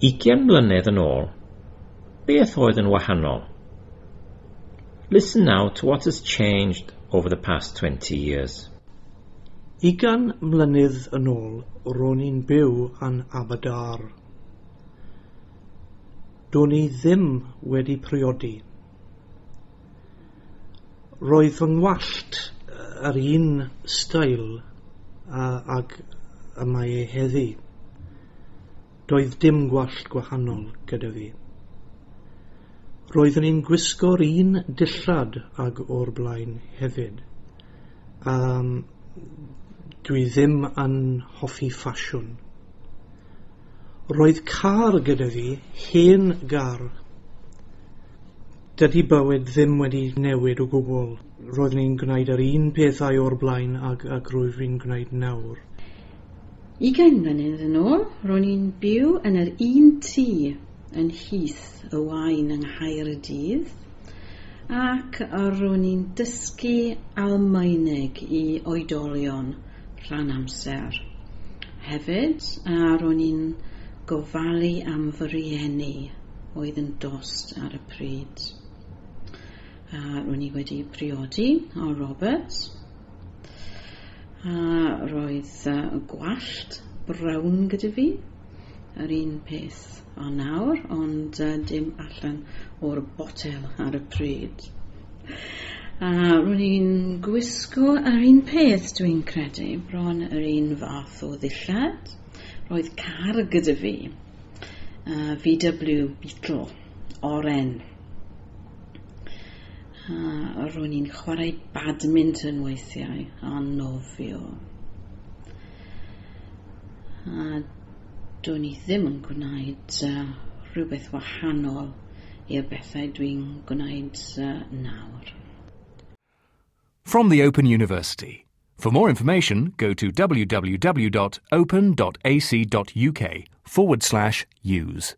20 mlynedd yn ôl, beth oedd yn wahanol? Listen now to what has changed over the past 20 years. 20 mlynedd yn ôl, ro'n i'n byw yn Aberdâr. Do'n i ddim wedi priodi. Roedd fy ngwallt yr un steil ag y mae e heddi. Doedd dim gwallt gwahanol gyda fi. Roeddwn i'n gwisgo'r un dillad ag o'r blaen hefyd. Dwi ddim yn hoffi ffasiwn. Roedd car gyda fi, hen gar. Dydy bywyd ddim wedi newid o gwbl. Roeddwn i'n gwneud yr un pethau o'r blaen ag rwyf fi'n gwneud nawr. 20 mlynedd yn ôl, ro'n i'n byw yn yr un tŷ yn Heath y Waun yng Nghaerdydd, ac ro'n i'n dysgu Almaeneg i oedolion rhan amser. Hefyd, a ro'n i'n gofalu am fy rieni oedd yn dost ar y pryd. A ro'n i wedi priodi o Robert, a roedd gwallt brown gyda fi, yr un peth o nawr, ond dim allan o'r botel ar y pryd. A ro'n i'n gwisgo yr un peth, dwi'n credu, bron yr un fath o ddillad. Roedd car gyda fi, VW Beetle, oren. A ro'n i'n chwarae badminton weithiau a nofio. A do'n i ddim yn gwneud rhywbeth wahanol i'r bethau dwi'n gwneud nawr. From the Open University. For more information, go to www.open.ac.uk/use.